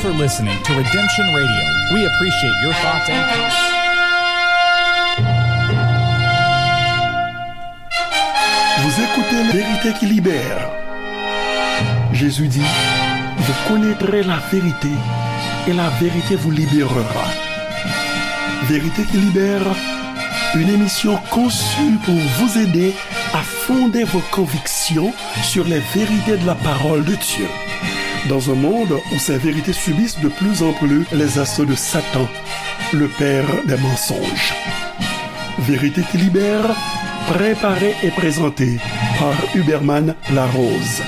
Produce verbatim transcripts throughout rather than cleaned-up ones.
for listening to Redemption Radio. We appreciate your thoughts and comments. Vous écoutez La vérité qui libère. Jésus dit, vous connaîtrez la vérité et la vérité vous libérera. Vérité qui libère, une émission conçue pour vous aider à fonder vos convictions sur les vérités de la parole de Dieu. Dans un monde où ces vérités subissent de plus en plus les assauts de Satan, le père des mensonges. Vérité qui libère, préparée et présentée par Huberman Larose.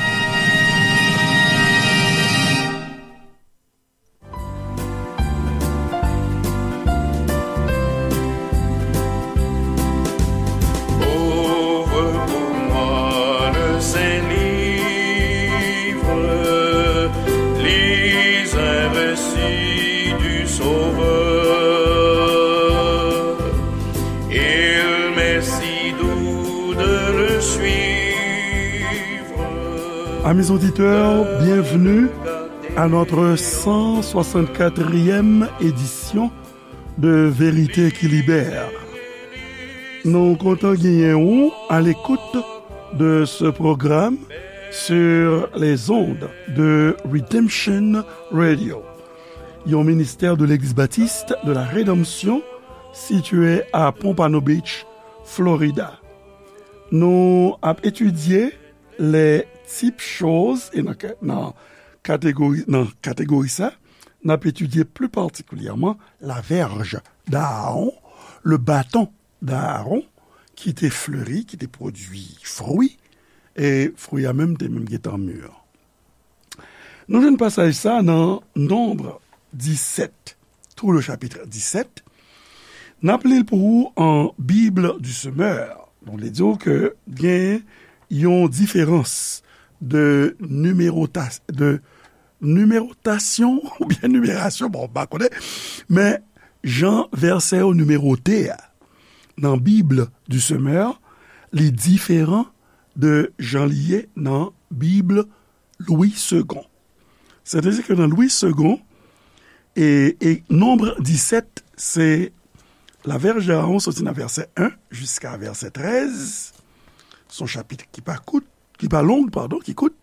Ouvre pour moi le Saint-Livre, lis un récit du Sauveur. Il m'est si doux de le suivre. Amis auditeurs, bienvenue à notre cent soixante-quatrième édition de Vérité qui Libère. Nou kontan genyen ou à l'écoute de ce programme sur les ondes de Redemption Radio, yon ministè de Legliz Batis de la Redanmsyon sitiye a Pompano Beach, Florida. Nou ap etidye les types choses, e nan, nan kategori, nan kategori sa, n ap etidye pli patikilyèman la verge d'Aaron, le bâton d'Aaron, ki te fleri, ki te pwodui fwi, e fwi a menm te menm gentan mi. Nou jwenn pasaj sa nan Nonb disèt, tout le chapitre disèt. N ap li l pou ou an Bible du Semeur. Donk, li di w ke gen yon diferans de nimerota-, de nimewotasyon oubyen nimerasyon, bon, m pa konnen, men jan vèsè yo nimewote a nan Bible du Semeur, li diferan de jan li ye nan Bible Louis Segond. Sètadi ke nan Louis Segond, e, e Nonb disèt, se la verge d'Aaron soti nan vèsè en jiska vèsè trèz. Se yon chapit ki pa kout, ki pa long, padon, ki kout.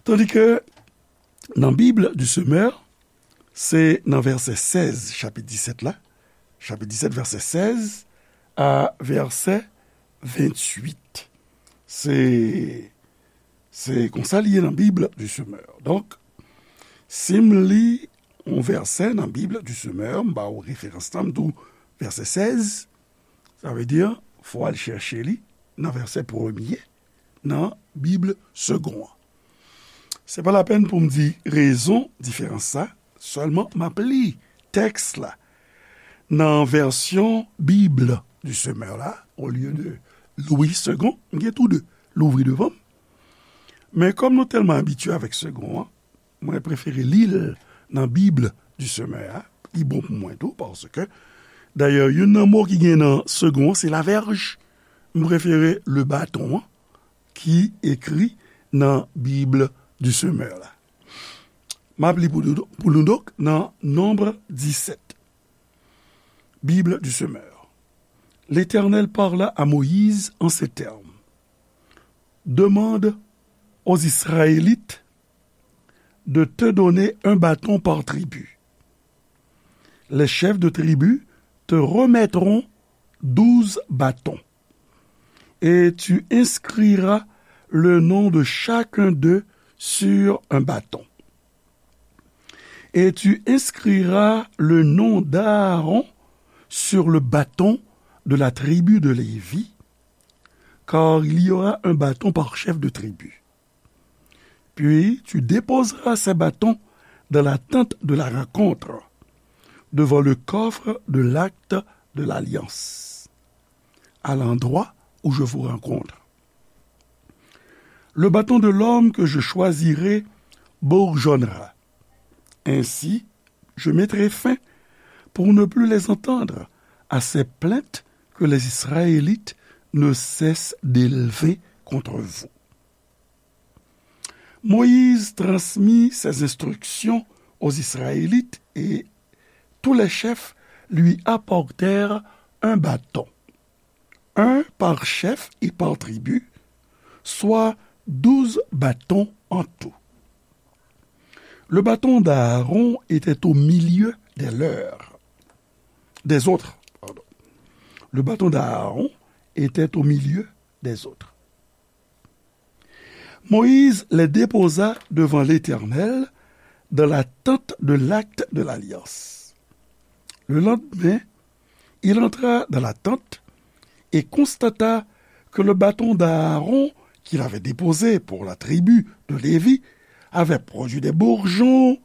Tandi ke nan Bible du Semeur, se nan vèsè sèz, chapit disèt la, chapit disèt, vèsè sèz a vèsè ventuit. Se, se konsa li ye nan Bible du Semeur. Donk, si m li yon vèsè nan Bible du Semeur, m ba w referans lan, m di w vèsè sèz, sa vle di, fò w al chèche li nan vèsè premye nan Bible Segond an. Se pa lapèn pou m di rezon diferans sa, sèlman m ap li tèks la nan vèsyon Bible du Semeur la, olye de Louis Segond, m gen tou de louvri devan m. Men kòm nou tèlman abitye avèk Segond an, mwen prefere li l nan Bible du Semeur a, li bon pou mwen tou, paske, dayè, youn nan mo ki gen nan Segond an, se la verge. M prefere le bâton an, ki ekri nan Bible du Semeur la. M ap li pou nou, pou nou donk nan Nonb disèt. Bible du Semeur. L'Éternel parla à Moïse en ces termes. Demande aux Israélites de te donner un bâton par tribu. Les chefs de tribu te remettront douze bâtons, et tu inscriras le nom de chacun d'eux sur un bâton. Et tu inscriras le nom d'Aaron sur le bâton de la tribu de Lévi, car il y aura un bâton par chef de tribu. Puis tu déposeras ces bâtons dans la tente de la rencontre, devant le coffre de l'acte de l'alliance, à l'endroit où je vous rencontre. Le bâton de l'homme que je choisirai bourgeonnera. Ainsi, je mettrai fin, pour ne plus les entendre, à ces plaintes que les Israélites ne cessent d'élever contre vous. Moïse transmit ces instructions aux Israélites et tous les chefs lui apportèrent un bâton, un par chef et par tribu, soit douze bâtons en tout. Le bâton d'Aaron était au milieu des leurs, des autres, pardon. Le bâton d'Aaron était au milieu des autres. Moïse les déposa devant l'Éternel dans la tente de l'acte de l'alliance. Le lendemain, il entra dans la tente et constata que le bâton d'Aaron qu'il avait déposé pour la tribu de Lévi avait produit des bourgeons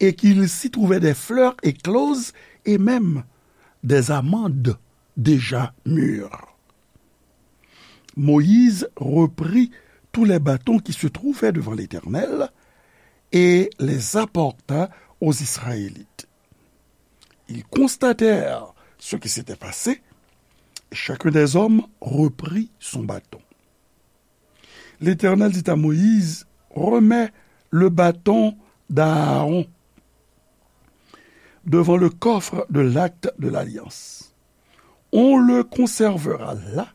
et qu'il s'y trouvait des fleurs écloses et même des amandes déjà mûres. Moïse reprit tous les bâtons qui se trouvaient devant l'Éternel et les apporta aux Israélites. Ils constatèrent ce qui s'était passé, et chacun des hommes reprit son bâton. L'Éternel dit à Moïse, remets le bâton d'Aaron devant le coffre de l'acte de l'alliance. On le conservera là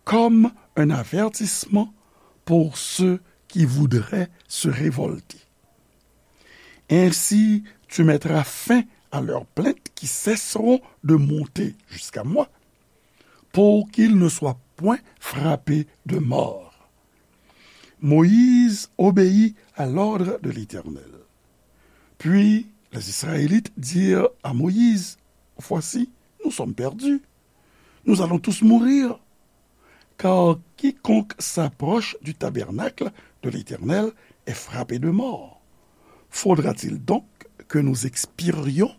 comme un avertissement pour ceux qui voudraient se révolter. Ainsi, tu mettras fin à leurs plaintes qui cesseront de monter jusqu'à moi, pour qu'ils ne soient point frappés de mort. Moïse obéit à l'ordre de l'Éternel. Puis les Israélites dirent à Moïse, voici, nous sommes perdus. Nous allons tous mourir. Car quiconque s'approche du tabernacle de l'Éternel est frappé de mort. Faudra-t-il donc que nous expirions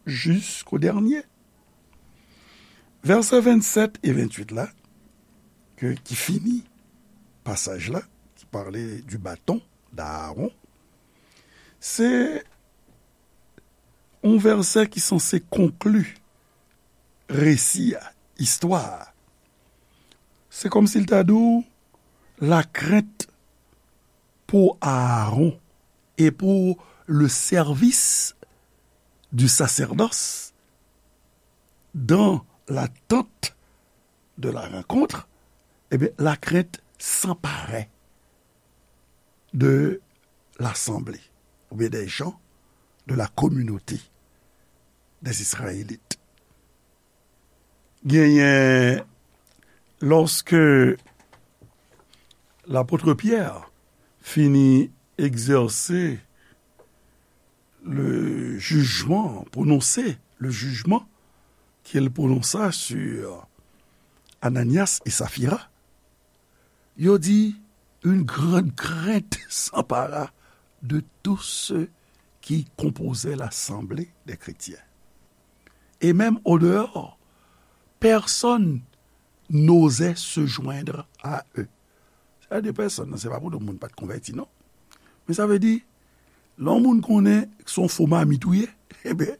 jusqu'au dernier? Vèsè vennsept e venntuit la, ke, ki fini pasaj la, ki pale du bâton d'Aaron, se yon vèsè ki sanse konkli resi a, istwa a. Se kòmsi l ta di w, la crainte pour Aaron et pour le service du sacerdoce dans la tente de la rencontre, eh bien, la crainte s'emparait de l'assemblée, ou bien des gens de la communauté des Israélites. Genyen, lòske lapot Pyè fini egzèse le jugement, prononse le jugement qu'il prononça sur Ananias et Saphira, yo di, une grande crainte s'empara de tous ceux qui composaient l'assemblée des chrétiens. Et même au dehors, personne n'osait se joindre à eux. Sa de pèsonn nan, se pa pou tout moun pa t konvèti, non. Men sa vle di, lè yon moun konnen se yon fo mamit ou ye, eben,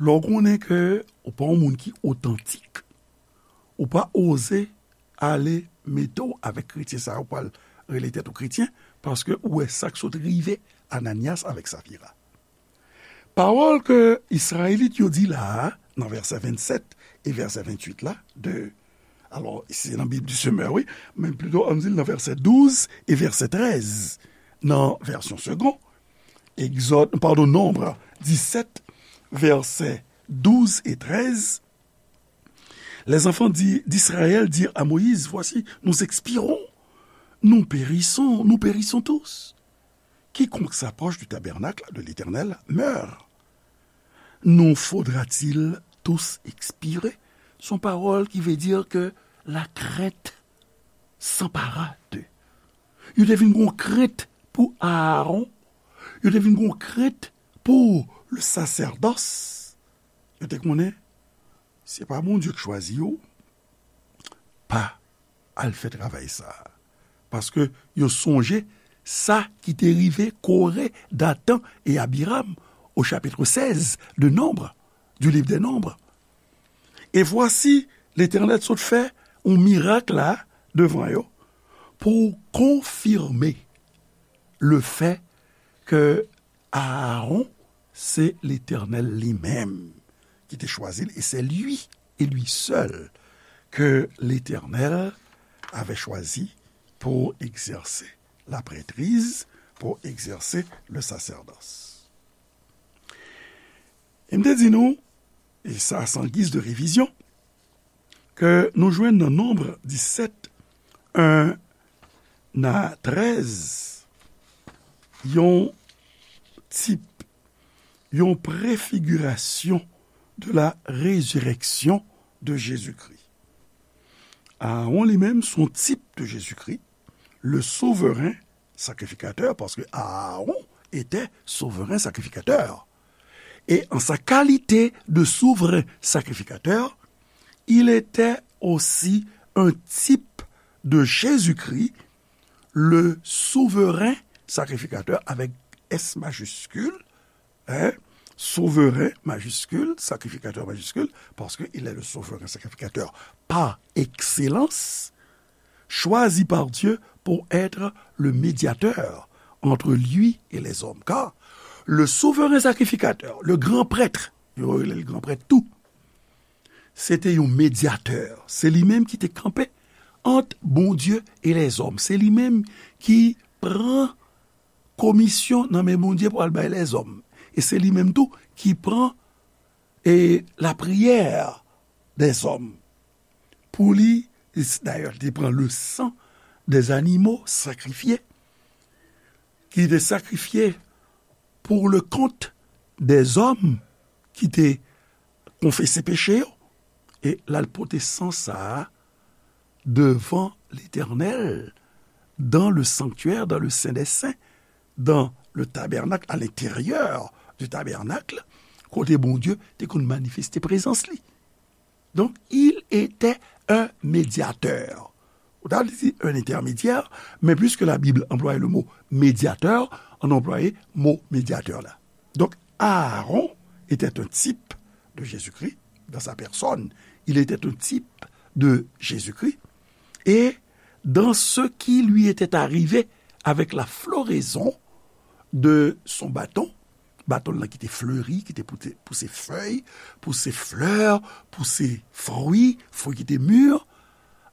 lè w konnen ke ou pa yon moun ki otantik, ou pa oze ale mete w avèk kretyen sa yo, ou pral rele tèt ou kretyen, paske ou wè sa k sot rive Ananyas avèk Safira. Pawòl ke Izrayelit yo di la a, nan vèsè vennsèt e vèsè venntuit la, de, alò, se nan Bib du Semeur, wi, men plito, ann di l nan vèsè douz e vèsè trèz, nan vèsyon Segond, Egzòd, padon, Nonb disèt, vèsè douz e trèz, Les enfants di-, d'Israël dirent à Moïse, voici, nous expirons, nous périssons, nous périssons tous. Quiconque s'approche du tabernacle de l'Éternel meurt. Nous faudra-t-il tous expirer? Se yon pawòl ki vle di ke la crainte s'empara d'eux. Yo te vin gon krent pou Aaron, yo te vin gon krent pou le sacerdoce. Yo te konnen, se pa Bondye ki chwazi yo, pa al fè travay sa a. Paske yo sonje sa ki te rive Kore, Datan e Abiram au chapitre seize de Nombre, du livre des Nombres. Et voici, Letènèl sot fè yon mirak la devan yo pou konfime le fè ke Aaron Se Letènèl li menm ki te chwazi l, e se li, e li sèl, ke Letènèl avè chwazi pou egzèse laprètriz, pou egzèse le sasèdòs. E m te di nou, e sa, san giz de revizyon, ke nou jwenn nan Nonb disèt, en a trèz, yon tip, yon prefigirasyon de la résurrection de Jésus-Christ. Aaron li menm, se yon tip de Jezikri, le souvren sakrifikatè, paske Aaron était souverain sacrificateur. Et en sa qualité de souverain sacrificateur, il était aussi un type de Jésus-Christ, le souverain sacrificateur avec S majuscule, hein, souverain majuscule, sacrificateur majuscule, parce qu'il est le souverain sacrificateur par excellence, choisi par Dieu pour être le médiateur entre lui et les hommes. Car le souverain sacrificateur, le grand prêtre, yo rele l gran prèt tou, se te yon medyatè. Se li menm ki te kanpe ant Bondye e lèzòm. Se li menm ki pran komisyon nan men Bondye pou al bay lèzòm. E se li menm tou ki pran, e, lapriyè dèzòm. Pou li, dayè, li te pran le san dè zanimo sakrifye, ki te sakrifye pour le compte des hommes ki te konfese peche yo, e l al pote san sa a devan Letènèl, dans le sanctuaire, dans le Saint des Saints, dans le tabernacle, à l'intérieur du tabernacle, kote Bondye te konn manifeste prezans li. Donc, il était un médiateur. Ou ta di un intermédiaire, mais puisque la Bible employait le mot médiateur, on a employé mot médiateur là. Donc, Aaron était un type de Jésus-Christ dans sa personne. Il était un type de Jésus-Christ. Et dans ce qui lui était arrivé avec la floraison de son bâton, baton l lan ki te fleri, ki te pouse, pouse fèy, pouse flè, pouse fwi, fwi ki te mi,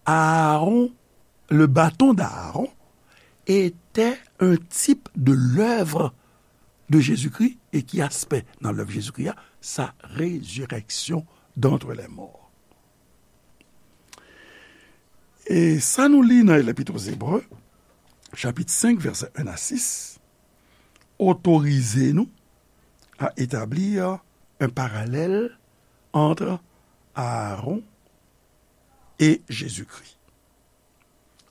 Aaron, le bâton d'Aaron, était un type de l'œuvre de Jésus-Christ. E ki aspè nan lèv Jezikri a? Sa résurrection d'entre les morts. E sa nou li nan Lèpit Ebre, chapit senk, vèsè en a sis, otorize nou à établir un parallèle entre Aaron et Jésus-Christ.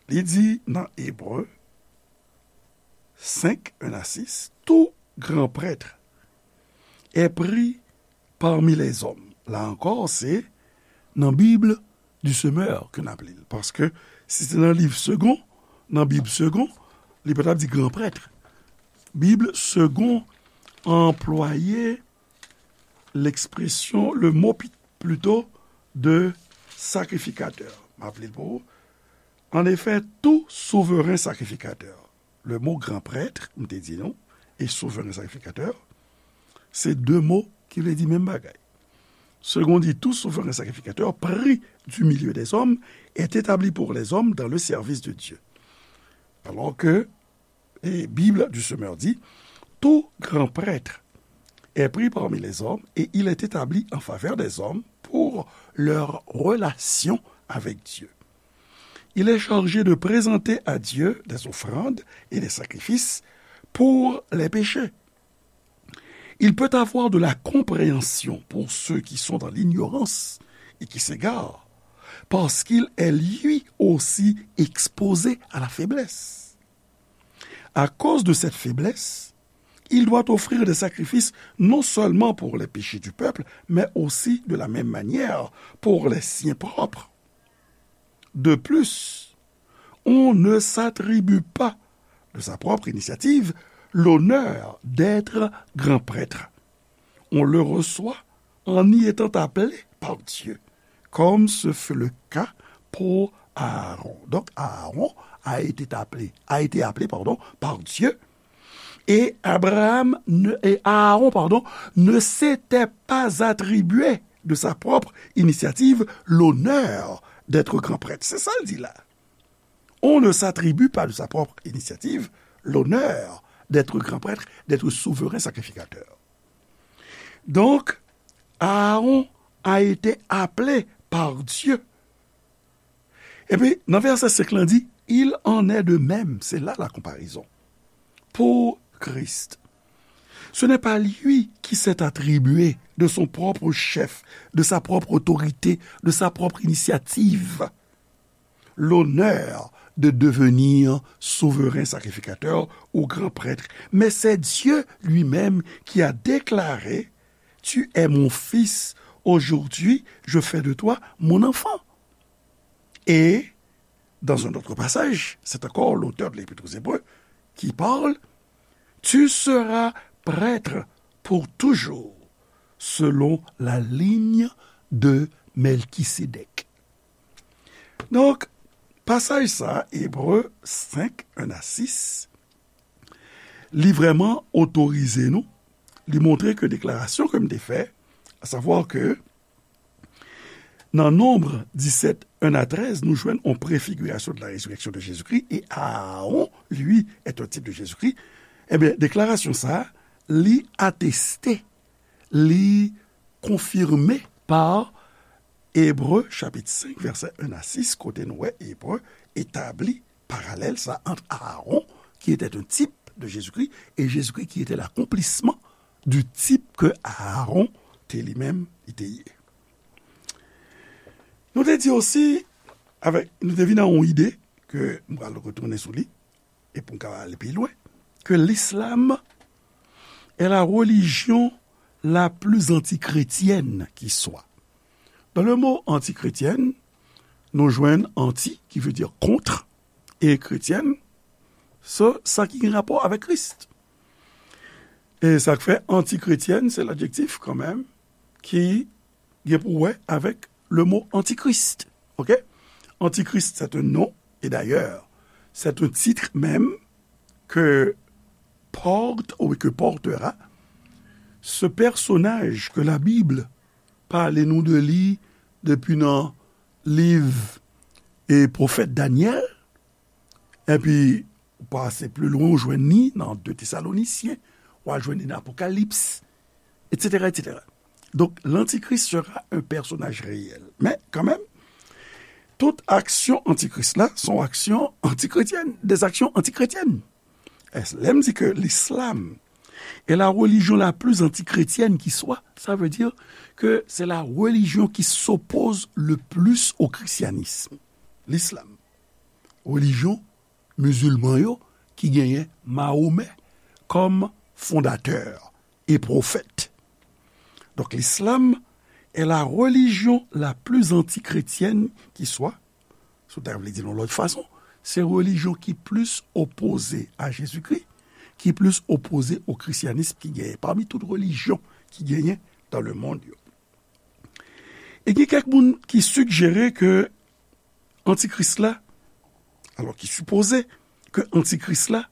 Li di nan Ebre senk, en a sis, tout grand prêtre est pris parmi les hommes. La ankò, se nan Bib du Semeur ke n ap li l. Paske si se nan liv Segond, nan Bib Segond, li pa t ap di gran prèt. Bib Segond anplwaye lekspresyon, le mo pi-, plito, de sacrificateur. M ap li l pou ou. En effet, tout souverain sacrificateur. Le mot grand prêtre, m te di nou, e souverain sacrificateur, se de mo ki vle di menm bagay. Segond di, tout souverain sacrificateur pris du milieu des hommes est établi pour les hommes dans le service de Dieu. Alors que, et Bible du Semeur dit, tout grand prêtre est pris parmi les hommes et il est établi en faveur des hommes pour leur relation avec Dieu. Il est chargé de présenter à Dieu des offrandes et des sacrifices pour les péchés. Il peut avoir de la compréhension pour ceux qui sont dans l'ignorance et qui s'égarent, parce qu'il est lui aussi exposé à la faiblesse. À cause de cette faiblesse, il doit offrir des sacrifices non seulement pour les péchés du peuple, mais aussi de la même manière pour les siens propres. De plus, on ne s'attribue pas de sa propre initiative l'honneur d'être grand prêtre. On le reçoit en y étant appelé par Dieu, comme ce fut le cas pour Aaron. Donc Aaron a été appelé, a été appelé, pardon, par Dieu Et Abraham ne, et Aaron, pardon, ne s'était pas attribué de sa propre initiative l'honneur d'être grand prêtre. C'est ça le dit là. On ne s'attribue pas de sa propre initiative l'honneur d'être grand prêtre, d'être souverain sacrificateur. Donc, Aaron a été appelé par Dieu. Epi, nan vèsè senk lan di, il en est de même, c'est là la comparaison, pour Christ. Ce n'est pas lui qui s'est attribué de son propre chef, de sa propre autorité, de sa propre initiative, l'honneur de devenir souverain sacrificateur ou grand prêtre, mais c'est Dieu lui-même qui a déclaré, tu es mon fils, aujourd'hui je fais de toi mon enfant. Et dans un autre passage, c'est encore l'auteur de l'Épître aux Hébreux qui parle, tu seras prêtre pour toujours, selon la ligne de Melchisédek. Donk, pasaj sa, Ebre senk, en a sis, li vrèman otorize nou, li montre ke deklarasyon ke m te fè, a savwa ke nan Nonb disèt, en a trèz, nou jwenn yon prefigurasyon de la résurrection de Jésus-Christ, et Aaron, lui, est un type de Jésus-Christ. Ebyen, deklarasyon sa, li ateste, li konfime pa Ebre chapit senk, vèsè en a sis, kote nou wè Ebre etabli paralèl sa ant Aaron, qui était un type de Jésus-Christ, et Jésus-Christ qui était l'accomplissement du type que Aaron te li menm, li te ye. Nou te di osi, avèk, nou te vin a yon ide ke m pral retounen sou li, e pou n ka ale pi lwen, ke l'islam est la religion la plus antichrétienne qui soit. Dans le mot antichrétienne, nou jwenn anti, ki vle di kont, e chrétienne, se sa ki gen rapò avèk Kris. E sa k fè antichrétienne, se ladjektif kanmenm ki gen pou wè avèk le mot antichrist. Ok? Antichrist, c'est un nom, et d'ailleurs, c'est un titre même que porte ou que portera ce personnage que la Bible pale nou de li depi nan liv e pwofèt Danyèl, epi ou pase pi lwen, ou jwenn li nan de Tesalonisyen, ou al jwenn li nan Apokalips, etsetera, etsetera. Donk, l'Antichrist sera un personnage réel. Men, kanmenm, tout aksyon antikris la se yon aksyon antichrétienne, des actions antichrétiennes. Lè m di ke l'islam est la religion la plus antichrétienne qui soit, ça veut dire que c'est la religion qui s'oppose le plus au christianisme. L'islam. Relijyon mizilman yo ki genyen Mahomè kòm fondatè e pwofèt. Donk, l'islam est la religion la plus antichrétienne qui soit, si w ta vle di l yon lòt fason, se relijyon ki plis opoze a Jezikri, ki plis opoze o krisyanism ki genyen, pami tout relijyon ki genyen dans le monde yo. E gen kèk moun ki sigjere ke antikris la, alò ki sipoze ke antikris la,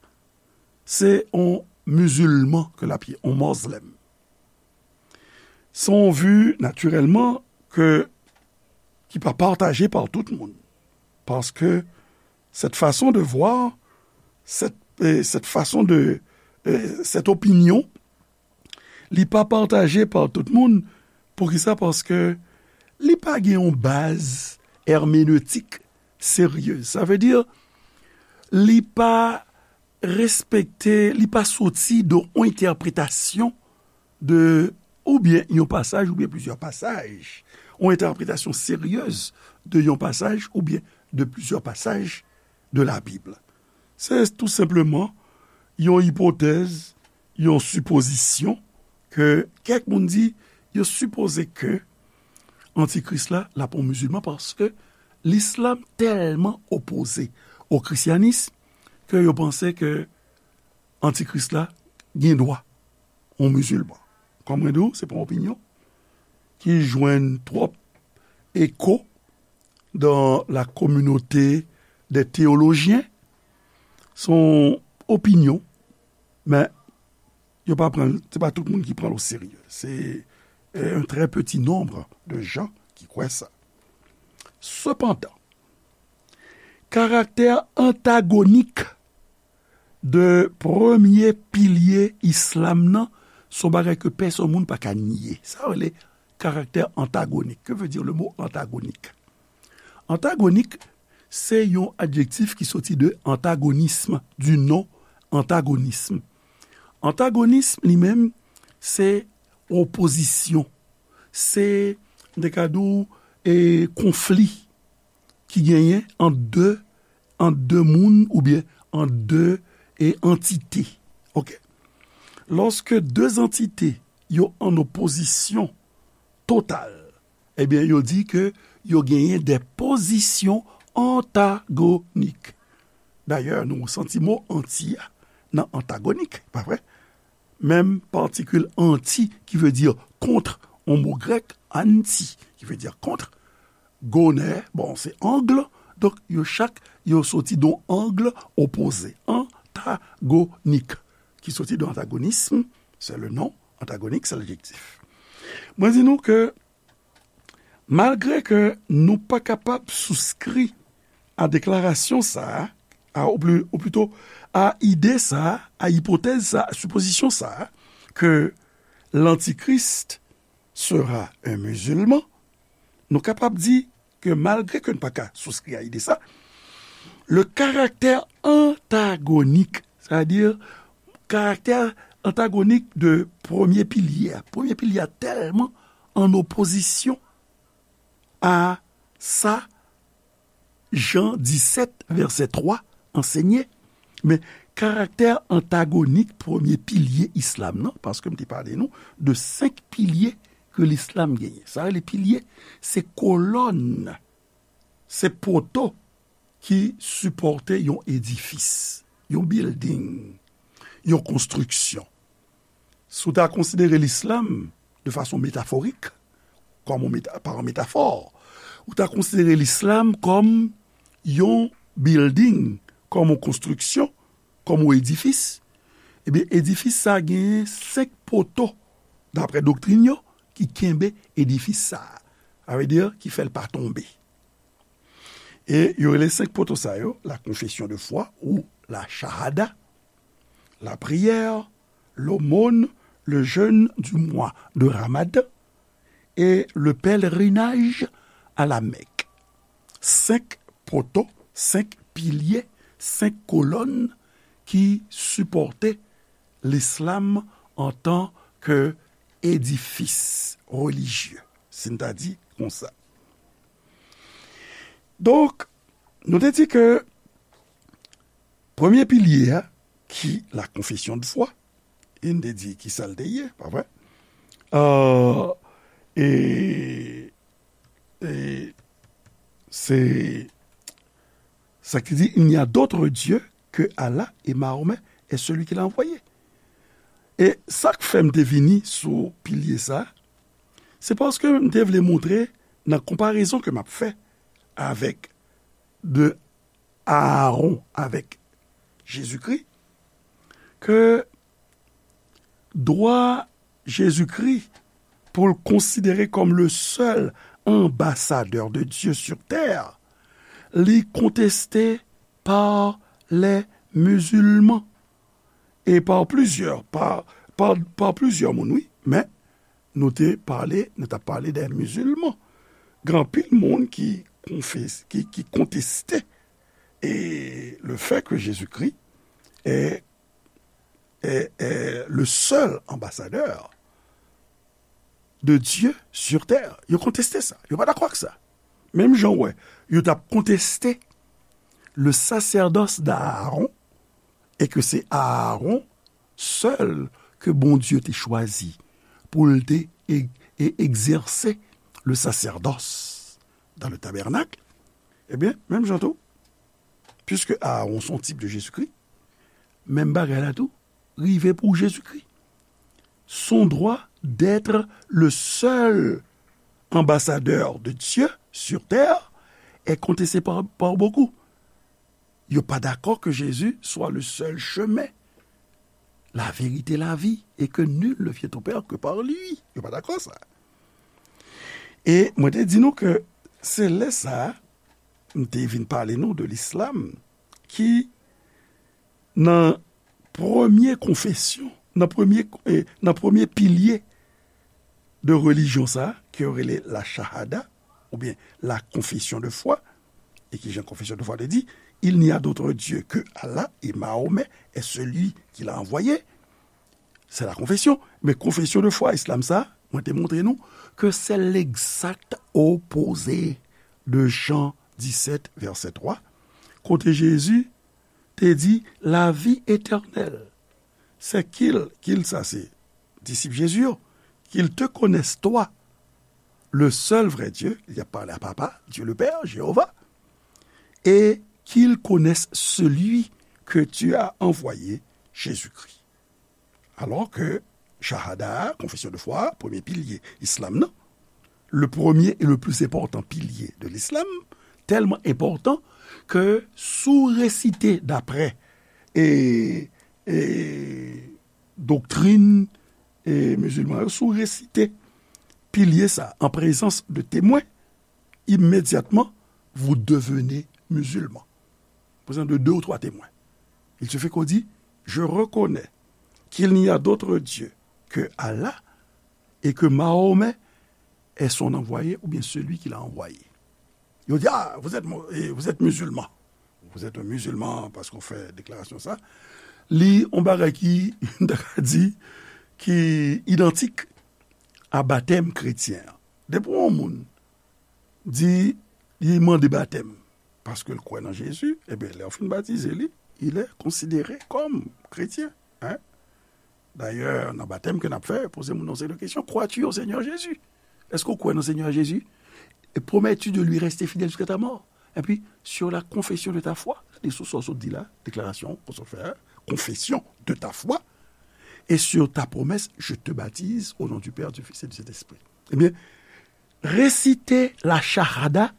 se yon mizilman ke l ap ye, yon mozlèm. Se yon vi, natirèlman, ke, ki pa pataje pa tout moun. Paske cette façon de voir, cette, euh, cette façon de, euh, cette opinion, li pa pataje pa tout moun. Poukisa? Paske li pa gen yon baz èmenetik seryez. Sa vle di, li pa respekte, li pa soti de yon entèpretasyon de, oubyen yon pasaj, oubyen plizyè pasaj, yon entèpretasyon seryez de yon pasaj, oubyen de plizyè pasaj de Labib. Se tou senpleman yon ipotèz, yon sipozisyon ke kèk moun di, yo sipoze ke antikris la, l ap yon mizilman, paske lislam tèlman opoze o krisyanis ke yo panse ke antikris la gen dwa yon mizilman. Kòm mwen di w, se pa yon opinyon ki jwenn twòp eko dans la communauté des théologiens. Se yon opinyon, men yo pa pran, se pa tout moun ki pran l o serye. Se, euh, un très petit nombre de gens qui croient ça. Sepandan, karaktè antagonik de premye pilye islam nan, se yon bagay ke pèsonn moun pa ka nye. Sa yo rele karaktè antagonik. Que veut dire le mot antagonik? Antagonik, se yon adjektif ki soti de antagonisme, du nom antagonisme. Antagonisme, li menm, se opozisyon. Se, m te ka di w, e, konfli ki genyen ant de, ant de moun oubyen ant de, e, antite. Oke? Lòske de antite yo an opozisyon total, ebyen, yo di ke yo genyen de pozisyon antagonik. Dayè, nou santi mo anti a nan antagonik, pa vre? Menm patikil anti ki vle di kont, yon mo grèk, anti, ki vle di kont, gonè, bon, se angle, donk yo chak, yo soti de yon angle opoze, antagonik, ki soti de antagonisme, c'est le nom, antagonik, c'est l'adjectif. Mwen di nou ke malgre ke nou pa kapab souskri a deklarasyon sa a, a, ou pli, ou plito, a ide sa a, a ipotèz sa a, a sipozisyon sa a, ke l'Antichrist sera un musulman, nou kapab di ke malgre ke nou pa ka souskri a ide sa, le karaktè antagonik, sètadi karaktè antagonik de premye pilye a, premye pilye a tèlman an opozisyon a sa Jan disèt, vèsè twa, ansenye, men karaktè antagonik premye pilye islam nan, paske m te pale nou de senk pilye ke lislam genyen. Sa rele pilye, se kolòn, se poto ki sipòte yon edifis, yon bilding, yon konstriksyon. Si w ta konsidere lislam de fason metaforik, kòm yon meta-, pa yon metafò, ou ta konsidere lislam kòm yon bilding, kòm yon konstriksyon, kòm yon edifis, ebyen, edifis sa a genyen senk poto, daprè doktrin yo, ki kenbe edifis sa a. Sa vle di, ki fè l pa tonbe. E yo rele senk poto sa yo, la confession de foi ou la shahada, la prière, l'aumône, le jeûne du mois de Ramadan et le pèlerinage à la Mecque. Senk poto, senk pilye, senk kolòn ki sipòte lislam antan ke edifis relijye, si n ta di konsa. Donk, nou te di ke premye pilye a, ki la confession de foi, e n te di ki sa l te ye, pa vre? Euh, e, e se sa ki di, il n'y a d'autre Dieu que Allah et Mahomet est celui qu'il a envoyé. E sa k fè m te vini sou pilye sa, se paske m te vle montre nan konparezon ke m ap fè avèk de Aaron avèk Jezikri, ke dwa Jezikri pou l konsidere kòm le seul ambassadeur de Dieu sur terre, li konteste pa les musulmans e pa plizyè, pa, pa, pa plizyè moun, wi, men nou te pale, nou t ap pale de mizilman. Gen anpil moun ki konfes-, ki, ki konteste, e, le fait que Jésus-Christ est, est, est le seul ambassadeur de Dieu sur terre. Yo konteste sa. Yo pa dakò ak sa. Menm jan w wè, yo t ap konteste le sacerdoce d'Aaron, e ke se Aaron sèl ke Bondye te chwazi pou l te e-, e-, egzèse le sacerdoce dans le tabernacle, ebyen, menm jan tou, puiske Aaron se yon tip de Jezikri, menm bagay la tou rive pou Jezikri. Son droit d'être le seul ambassadeur de Dieu sur terre est contesté par, par beaucoup. Yo pa dakò ke Jezi swa le seul chemin, la vérité, la vie, et que nul ne vient au Père que par lui. Yo pa dakò sa. E mwen te di nou ke se lè sa a, m te vin pale nou de lislam, ki nan premye konfesyon, nan premye, eh, nan premye pilye de relijyon sa a, ke yo rele la shahada, oubyen la confession de foi, e ki jan confession de foi te di, il n'y a d'autre Dieu que Allah et Mahomet est celui qui l'a envoyé. Se la konfesyon. Men konfesyon de fwa islam sa, mwen te montre nou ke se legzak opoze de Jan disèt, vèsè twa, kote Jezi te di, la vie éternelle, c'est qu'il, qu'il sa se disip Jezi yo, qu'il te connaisse toi, le seul vrai Dieu, li ap pale a Papa, Dieu le Père, Jewova, et qu'il connaisse celui que tu as envoyé, Jésus-Christ. Alò ke shahada, konfesyon de fwa, premye pilye islam nan, le premier et le plus important pilier de l'islam, tèlman enpòtan ke si w resite daprè e, e doktrin e mizilman yo, si w resite pilye sa an prezans de temwen, immédiatement, vous devenez musulman. Prezans de deux ou trois témoins. Il suffit qu'on dit, je reconnais qu'il n'y a d'autre Dieu que Allah et que Mahomet est son envoyé ou bien celui qui l'a envoyé. Yo di, ah, vous êtes, mu- eh, vous êtes musulman. Vous êtes un musulman paske w fè deklarasyon sa. Li yon bagay ki, m ta ka di, ki idantik a batèm kretyen an. Depi yon moun di, li mande batèm paske l kwè nan Jezi, ebyen, lè w fin batize li, il est considéré comme chrétien, hein? Dayè, nan batèm ke n ap fè, poze moun nan seri de kesyon, crois-tu au Seigneur Jésus? Èske w kwè nan Senyè Jezi? Et promets-tu de lui rester fidèle jusqu'à ta mort? Epi, sur la confession de ta foi, li sou sa w sot di la, deklarasyon ke w sot fè a, confession de ta foi, et sur ta promesse, je te baptise au nom du Père, du Fils et du Saint-Esprit. Ebyen, resite la shahada,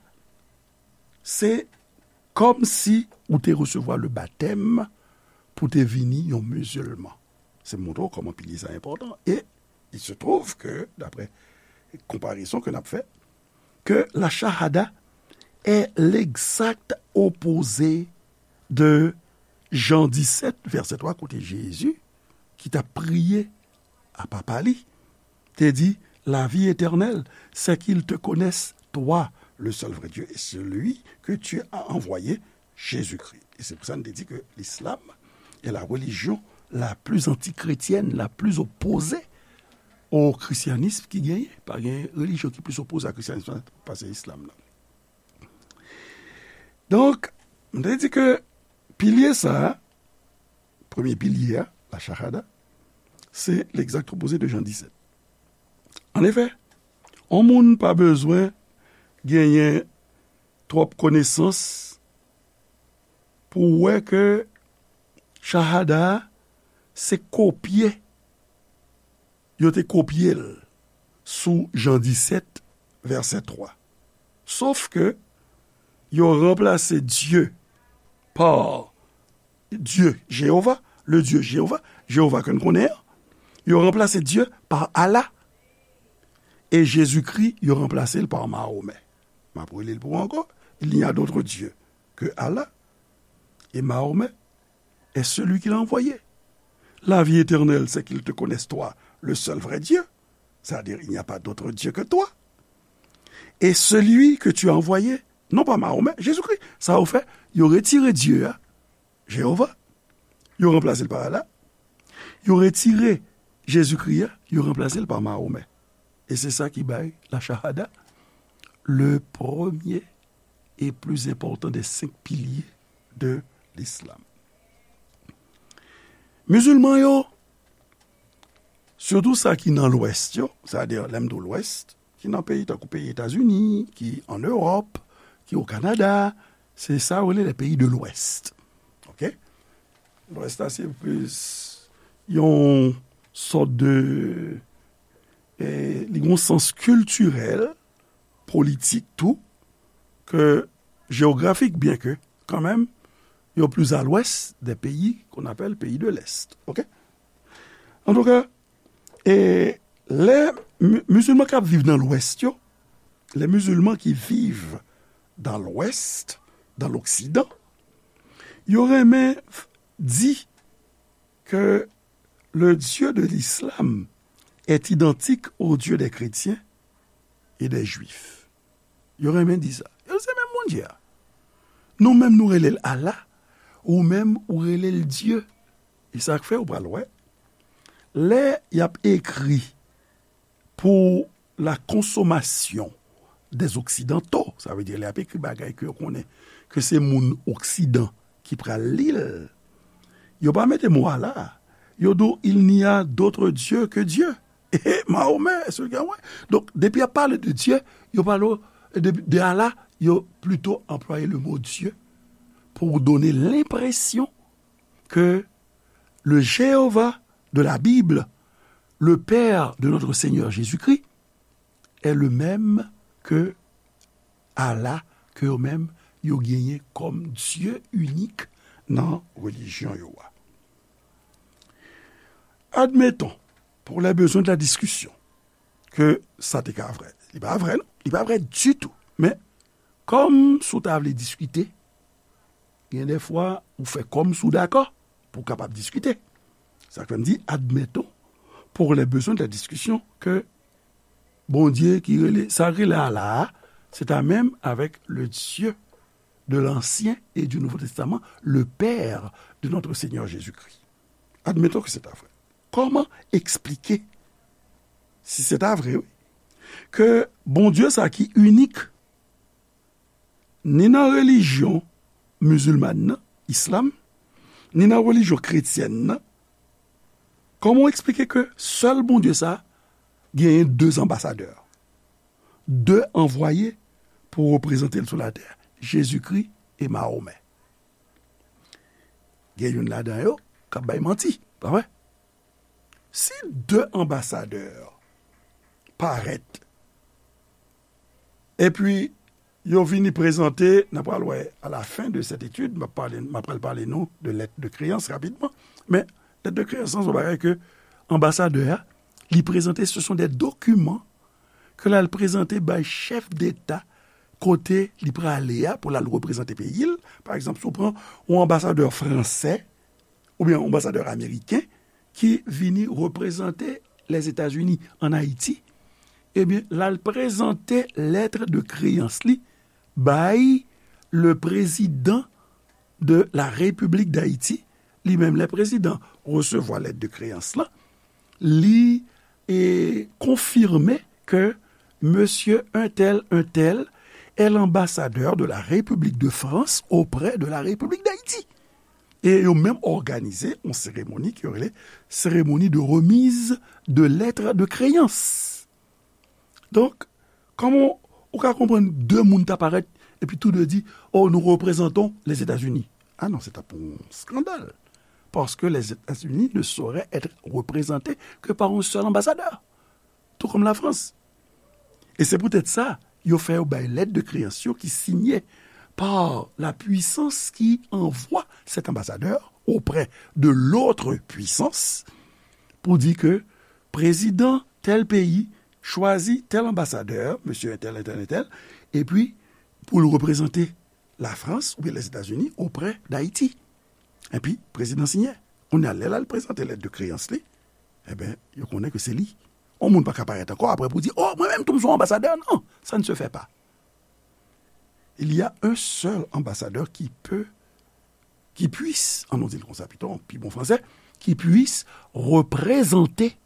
se kòmsi ou te resevwa le batèm pou te vini yon mizilman. Se montre w kòman pilye sa enpòtan. E il se trouve que, d'après comparaison que n ap fè, que la shahada est l'exact opposé de Jan disèt, vèsè twa, kote Jezi, ki t ap priye a Papa li, te di, la vie éternelle, c'est qu'ils te connaissent, toi, le seul vrai Dieu, et celui que tu as envoyé, Jésus-Christ. E se pou sa n te di ke l'islam est la religion la plus antichrétienne, la plus opposée au christianisme ki genyen. Pa gen relijyon ki plis opoze a kristyanis la pase islam nan. Donk, m te di ke pilye sa a, premye pilye a, la shahada, se l'exact opposé de Jan disèt. An efè, yon moun pa bezwen genyen twòp konesans pou w wè ke shahada a se kopye, yo te kopye l sou Jan disèt, vèsè twa. Sof ke yo ranplase Dye pa Dye Jewova, le Dieu Jéhovah, Jewova ke n konnen an, yo ranplase Dye pa Allah, e Jezikri, yo ranplase l pa Mahomè. M ap rele l pou ou ankò, il n'y a d'autre Dieu que Allah, et Mahomet est celui qui l'a envoyé. La vie éternelle, c'est qu'ils te connaissent toi, le seul vrai Dieu, c'est-à-dire il n'y a pas d'autre Dieu que toi, et celui que tu as envoyé, non pas Mahomet, Jésus-Christ. Sa yo fè, yo retire Dye a, Jewova, yo ranplase l pa Allah. Yo retire Jezikri a, yo ranplase l pa Mahomè. E se sa ki bay la shahada le premier et plus important des cinq piliers de l'islam. Mizilman yo, sitou sa ki nan lwès yo, sa vle di lè m di w lwès, ki nan peyi tankou peyi Etazini, ki an Ewòp, ki o Kanada, se sa yo rele les pays de l'Ouest. Oke? Lwès la se plis yon sòt de, eh, li gen yon sans kiltirèl, politik tou, ke jewografik, byen ke kanmenm yo plis a lwès de peyi qu'on appelle pays de l'Est. Oke? Antouka, e lè mi- mizilman k ap viv nan Lwès yo, les musulmans qui vivent dans l'Ouest, dans l'Occident, yo renmen f- di que le Dieu de l'islam est identique au Dieu des chrétiens et des juifs. Yo renmen di sa. Yo se menm Bondye a. Nou menm nou rele l Allah, ou menm ou rele l Dye. E sa k fè ou pral wè, lè y ap ekri pour la consommation des occidentaux, sa vle di lè y ap ekri bagay ke yo konnen ke se moun oksidan ki pral li l, yo pa mete mo Allah. Yo di w, il n'y a d'autre Dieu que Dieu. E Mahomè, se l gen wè. Donk, depi y ap pale de Dye, yo pale w de, de Allah, yo plito anplwaye le mot Dieu pour donner l'impression que le Jéhovah de la Bible, le Père de notre Seigneur Jésus-Christ, est le même que Allah, ke yo menm yo genyen kòm Dye inik nan relijyon yo a. Admettons, pour les besoins de la discussion, ke sa te ka vrè. Li pa vrè, non. Li pa vrè ditou. Men, kòm si w ta vle diskite, gen de fwa ou fè kòm si w dakò pou w kapab diskite. Sa k fè m di, admettons, pour les besoins de la discussion, ke Bondye ki rele, sa k rele Allah a, c'est à même avec le Dieu de l'Ancien et du Nouveau Testament, le Père de notre Seigneur Jésus-Christ. Admettons que c'est à vrai. Kòman eksplike, si se ta vre, wi, ke Bondye sa ki inik, ni nan relijyon mizilmàn nan, islam, ni nan relijyon kretyèn nan, kòman w eksplike ke sèl Bondye sa genyen de anbasadè, de anvwaye pou reprezante l sou latè, Jezikri e Mahomè? Gen youn ladan yo k ap bay manti, pa vre? Si de anbasadè parèt, epi yo vini prezante, n a pral wè à la fin de cette étude, m ap pale, m ap pral pale nou de lettre de créance rapidman, men lettre de créance lan se yon bagay ke anbasadè a, li prezante, ce sont des documents ke l al prezante bay chèf deta kote li prale a pou l al reprezante peyi l. Pa egzanp, si w pran yon anbasadè fransè oubyen yon anbasadè ameriken ki vini reprezante Lèzetazini ann Ayiti, ebyen, l al prezante lettre de créance li bay le président de la République d'Haïti. Li menm, lè prezidan resevwa lettre de créance lan, li e, konfime ke monsieur un tel, un tel est l'ambassadeur de la République de France auprès de la République d'Haïti. E yo menm òganize yon seremoni ki yo rele cérémonie de remise de lettre de créance. Donk, kòman ou ka konprann de moun ta parèt epi tou de di, oh, nous représentons les États-Unis? Ah non, se t ap yon skandal. Parce que les États-Unis ne sauraient être représentés que par un seul ambassadeur, tout comme la France. E se poutèt sa, yo fè yo bay lettre de créance yo ki siyen par la puissance qui envoie cet ambassadeur auprès de l'autre puissance pour dire que président tel pays choisit tel ambassadeur, monsieur un tel, un tel, un tel, epi pou l reprezante la France oubyen les États-Unis auprès d'Haïti. Epi, prezidan siyen. Kounye a, lè l al prezante lettre de créance li, enben, yo konnen ke se li. Yon moun pa ka parèt ankò apre pou di, oh, mwen menm tou m se yon anbasadè. Non, ça ne se fait pas. Il y a un seul ambassadeur qui peut, qui puisse, an nou di l konsa pito, an pi bon fransè, qui puisse représenter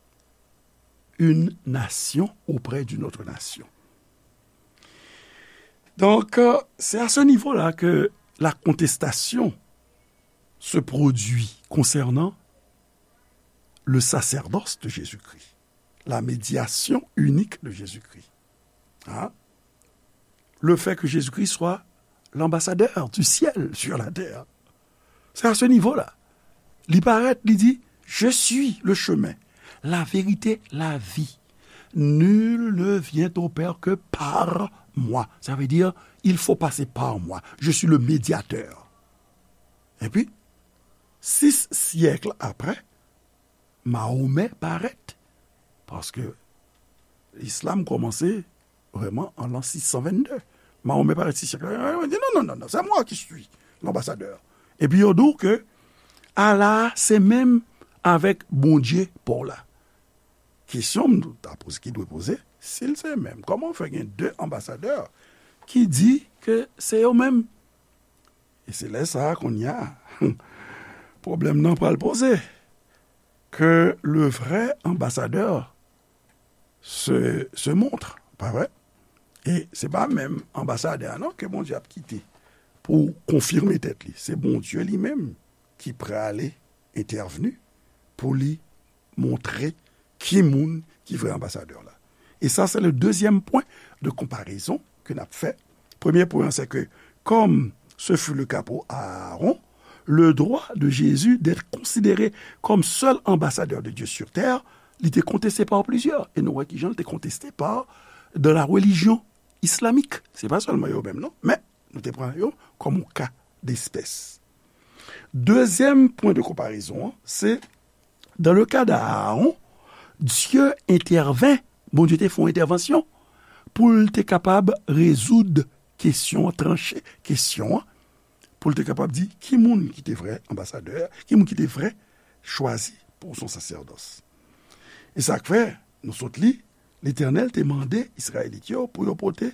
une nation auprès d'une autre nation. Donc, euh, c'est à ce niveau-là que la contestation se produit concernant le sacerdoce de Jésus-Christ, la médiation unique de Jésus-Christ. Hein? Le fait que Jésus-Christ soit l'ambassadeur du ciel sur la terre. C'est à ce niveau-là. Li parèt, li di, je suis le chemin, la vérité, la vie. Nul ne vient au Père que par moi. Ça veut dire, il faut passer par moi. Je suis le médiateur. Epi, sis syèk apre, Mahomè parèt, paske Islam kòmanse vrèman an l'an six cent vingt-deux. Mahomè parèt sou syèk la, li di, non, non, non, non, c'est moi qui suis l'ambassadeur. Epi yo di w ke Allah se menm avèk Bondye pa w la. Kesyon m ta poze, ki dwe poze, si l se menm, kòman fè gen de anbasadè ki di ke se yo menm? E se lè sa a, kounye a, pwoblèm nan pral poze, ke le vrai ambassadeur se, se montre, pa vre? E se pa menm anbasadè a non ke Bondye ap kite pou konfime tèt li. Se Bondye li menm ki prale entèvni pou li montre ki moun ki vrè anbasadè la. E sa, se le deuxième point de comparaison ke n ap fè. Premye pwen an, se ke, comme ce fut le cas pour Aaron, le droit de Jésus d'être considéré comme seul ambassadeur de Dieu sur terre, li te konteste pa plizyè. E nou wè kijan li te konteste pa dans la religion islamique. Se pa sèlman yo menm, non, men nou te pran yo kòm yon ka despès. Dezyèm pwen de konparezon an, se dans le cas d'Aaron, Dieu intervint, Bondye te fè yon entèvansyon pou l te kapab rezoud kesyon an, tranche kesyon an, pou l te kapab di ki moun ki te vrè anbasadè, ki moun ki te vrè chwazi pou son sasèdòs. E sa k fè, nou sot li, Letènèl te mande Izrayelit yo pou yo pote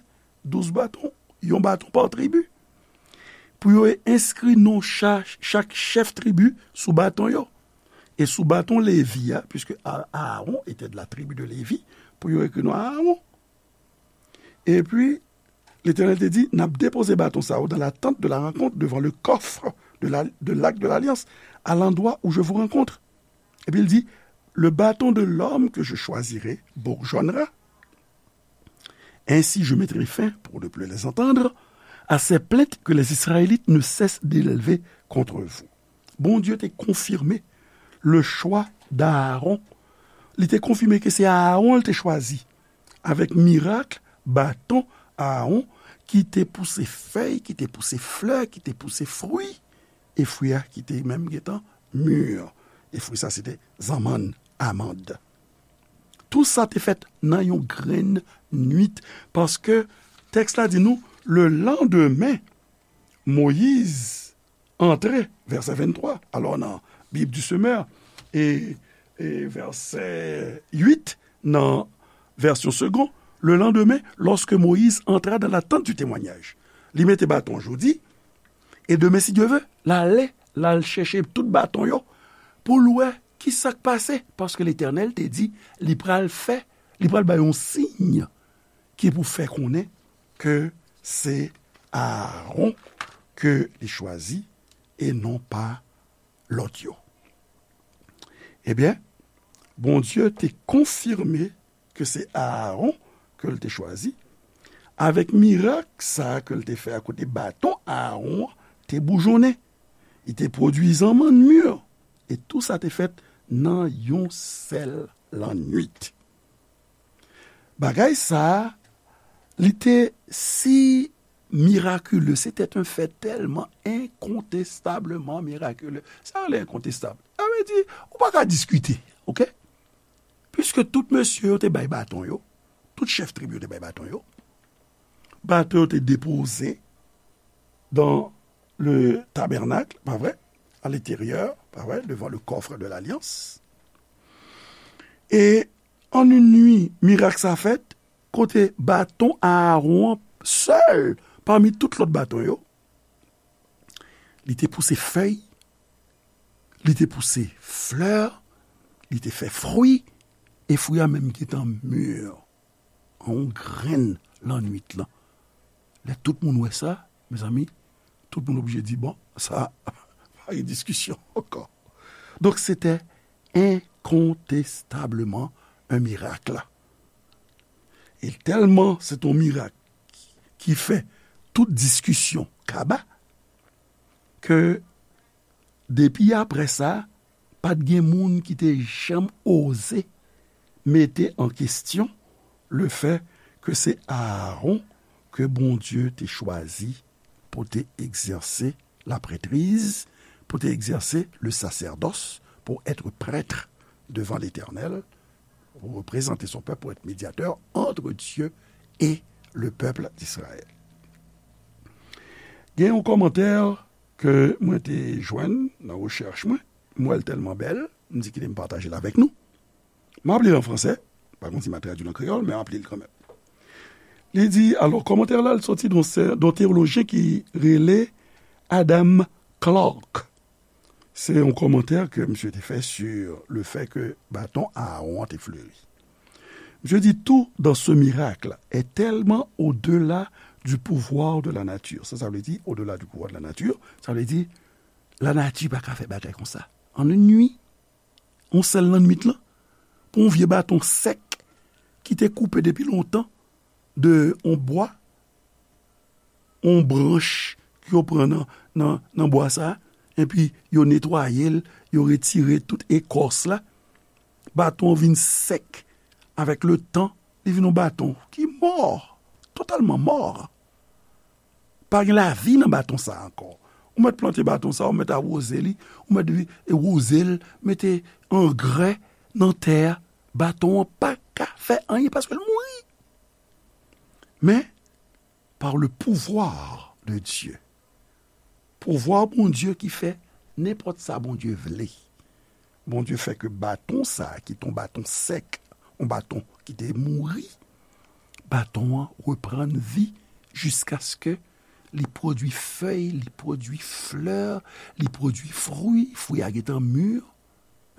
douz baton, yon baton pa tribi, pou yo enskri non cha-, chak chèf tribi sou baton yo. E sou baton Levi a, puisque A-, Aaron était de la tribu de Lévi, pou yo ekri non Aaron. Epi, Letènèl te di, n ap depoze baton sa yo dans la tente de la rencontre, devant le coffre de la, de l'arche de l'alliance, à l'endroit où je vous rencontre. Epi l di, le bâton de l'homme que je choisirai bourgeonnera. Ainsi, je mettrai fin, pour ne plus les entendre, à ces plaintes que les Israélites ne cessent d'élever contre vous. Bondye te konfime le choix d'Aaron. Li te konfime ke se Aaron l te chwazi. Avèk mirak, baton Aaron ki te pouse fèy, ki te pouse flè, ki te pouse fwi, e fwi a ki te menm gentan mi. E fwi sa, se te zanmann, amand. Tou sa te fèt nan yon grenn nwit, paske tèks la di nou, le landemen, Moyiz antre, vèsè venntwa, alò nan Bib di Semè, e, e vèsè uit nan vèsyon Segond, le lendemain, lorsque Moïse entra dans la tente du témoignage. Li mete baton jodi, e demen, si Dye ve, l ale, l al chèche tout baton yo, pou l wè ki sa k pase, paske Letènèl te di, li pral fè, li pral bay yon siy ki pou fè konnen ke se Aaron ke li chwazi e non pa lòt yo. Ebyen, Bondye te konfime ke se Aaron ke l te chwazi, avèk mirak sa a ke l te fè a kote baton Aaron an te boujonnen. Li te pwodui zanmann mi, e tou sa te fèt nan yon sèl lannwit. Bagay sa a, li te si mirakile, c'était un fait tellement incontestablement miraculeux. Sa rele incontestable. Sa vle di, ou pa ka diskite, oke? Piske tout mesye yo te bay baton yo, tout chèf tribi yo te bay baton yo, baton yo te depoze dans le tabernacle, pa vre? À l'intérieur, pa vre? Devant le coffre de l'alliance. E an yon nwi, mirak sa fèt, kote baton Aaron an sèl pami tout lòt baton yo, li te pouse fèy, li te pouse flè, li te fè fwi, e fwi a menm gentan mi. An yon grenn lannwit lan. Lè tout moun wè sa, mezanmi, tout moun oblije di, bon, sa, pa gen diskisyon ankò. Donk, se te incontestablement un miracle. E tèlman se te yon mirak ki fè tout diskisyon kaba, ke depi apre sa, pa t gen moun ki te janm oze mete an kesyon le fè ke se Aaron ke Bondye te chwazi pou te egzèse laprètriz, pou te egzèse le sasèdòs, pou èt prèt devant l'Éternel, pour représenter son peuple, pour être médiateur entre Dieu et le peuple d'Israël. Gen yon kòmantè ke mwen te jwenn nan rechèch mwen, m wè l tèlman bèl, m di kite m pataje l avèk nou. M ap li l an fransè, pa konn si m ap tradui l an kreyòl, men m ap li l kanmenm. Li di, alò, kòmantè la, l soti d yon sè, d yon teyolojyen ki rele Adam Clarke. Se yon kòmantè ke misye te fè sur le fait que baton Aaron an te fleri. Misye di, tout dans ce miracle est tellement au-delà du pouvoir de la nature. Sa, sa vle di, au-delà du pouvoir de la nature, sa vle di, lanati pa ka fè bagay konsa. An yon nwi, yon sèl lannwit lan, pou yon vye baton sèk ki te koupe depi lontan de yon bwa, yon branch yo pran nan, nan, nan bwa sa, epi yo netwaye l, yo retire tout ekòs la. Baton an vin sèk. Avèk le tan, li vin yon baton ki mò, totalman mò. Pa gen lavi nan baton sa a ankò. Ou mèt plante baton sa a, ou mèt awoze li, ou mèt vi-, e woze l, mete angrè nan tè a, baton an pa ka fè anyen paske l mouri. Men, par le pouvoir de Dieu, pouvwa Bondye ki fè nenpòt sa Bondye vle. Bondye fè ke baton sa a, ki te yon baton sèk, yon baton ki te mouri, baton an reprann vi jiskaske li pwodui fèy, li pwodui flè, li pwodui fwi, fwi a gentan mi.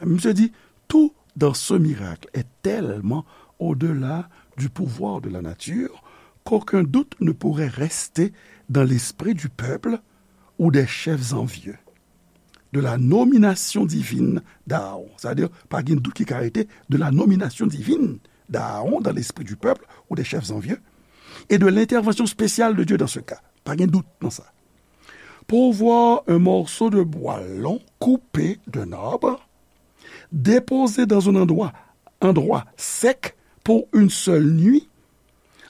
Misye di, tout dans ce miracle est tellement au-delà du pouvoir de la nature qu'aucun doute ne pourrait rester dans l'esprit du peuple ou des chefs envieux de la nomination divine d'Aaron. Sa vle di, pa gen dout ki ka rete de la nomination divine d'Aaron dans l'esprit du peuple ou des chefs envieux et de l'intervention spéciale de Dieu dans ce cas. Pa gen dout nan sa. Pour voir un morceau de bois long coupé d'un arbre, déposé dans un endroit, endroit sec pour une seule nuit,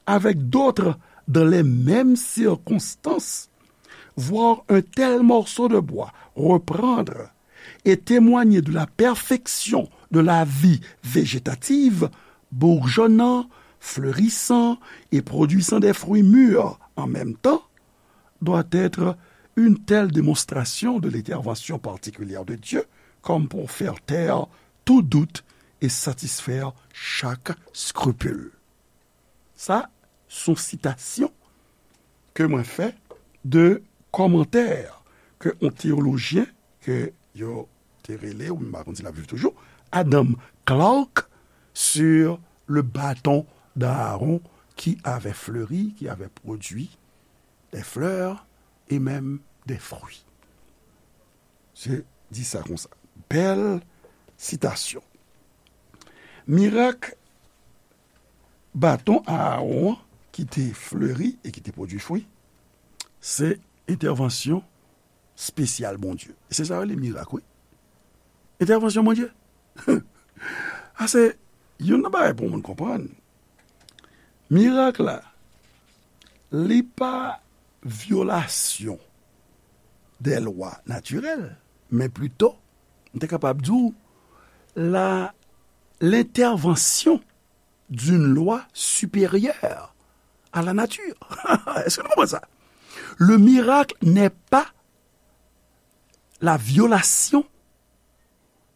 avec d'autres dans les mêmes circonstances, voir un tel morceau de bois reprendre et témoigner de la perfection de la vie végétative, bourgeonnant, fleurissant et produisant des fruits mûrs en même temps, doit être une telle démonstration de l'intervention particulière de Dieu comme pour faire taire tout doute et satisfaire chaque scrupule. Sa, se yon sitasyon ke mwen fè de kòmantè ke yon teyolojyen ke yo te rele, ou m pa konn si l ap viv toujou, Adam Clarke, sur le bâton d'Aaron qui avait fleuri, qui avait produit des fleurs et même des fruits. Se di sa konsa. Bèl sitasyon. Mirak baton Aaron an ki te fleri e ki te pwodui fwi, se entèvansyon espesyal Bondye. E se sa yo rele mirak, wi. Entèvansyon Bondye. A se youn nan bagay pou moun konprann. Mirak la, li pa vyolasyon dè lwa natirèl, men plito, m te kapab di w, la, l'intervention d'une loi supérieure à la nature. Èske nou konprann sa? Le miracle n'est pas la violation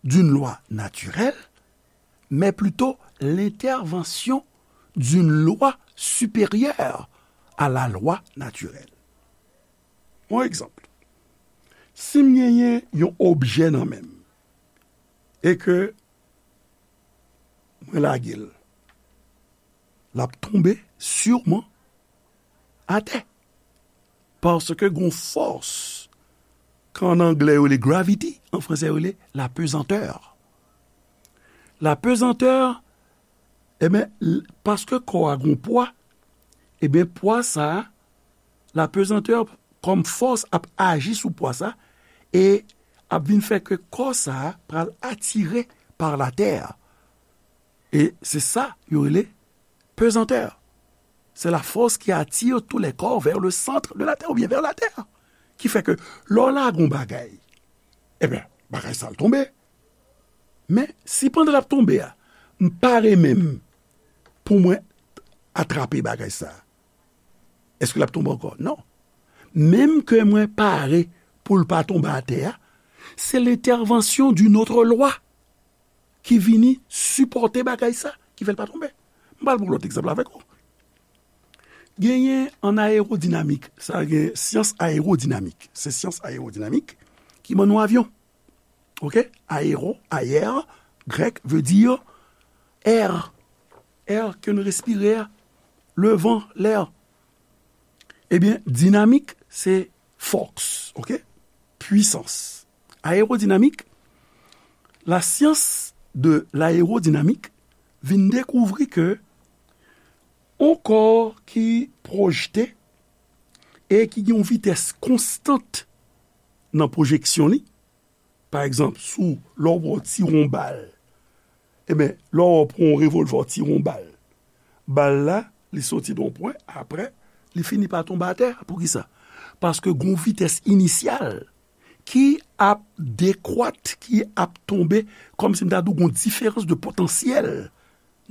d'une loi naturelle, mais plutôt l'intervention d'une loi supérieure à la loi naturelle. Yon egzanp. Si m genyen yon objè nan men m, e ke mwen lage l, l ap tonbe siman atè. Paske gon fòs, ke an anglè yo rele gravity, an fransè yo rele la pesanteur. La pesanteur, ebyen, l-, paske kò a gon pwa, ebyen, pwa sa a, la pesanteur kòm fòs ap aji sou pwa sa, e ap vin fè ke kò sa a pral atire par la terre. E se sa yo rele pesanteur. C'est la force qui attire tous les corps vers le centre de la terre ou bien vers la terre. Ki fè ke lè w lage yon bagay, ebyen, bagay sa l tonbe. Men, si pandan l ap tonbe a, m pare menm pou mwen atrape bagay sa a, èske l ap tonbe ankò? Non. Menm ke mwen pare pou l pa tonbe atè a, se lentèvansyon d'une autre loi ki vini sipòte bagay sa, ki fè l pa tonbe. M pral pran lòt egzanp avèk ou. Genyen an ayewodinamik, sa gen syans ayewodinamik. Se syans ayewodinamik ki ban nou avyon. Oke? Aero, ayer, grèk, veut dire air. Air ke nou respire a, le van, lè. Ebyen, dinamik, se fòs, oke? Pwisans. Ayewodinamik, la science de l'aérodynamique vin dekouvri ke on kò ki pwojte e ki gen yon vitès konstant nan pwojeksyon li, pa egzanp, sou lè w pran ti won bal, ebyen, lè w pran yon revòlvè w tire yon bal, bal la, li soti nan yon pwen, apre, li fini pa tonbe atè. Poukisa? Paske gon vitès inisyal ki ap dekwat, ki ap tonbe, kòmsi m ta di w gon diferans de potansyèl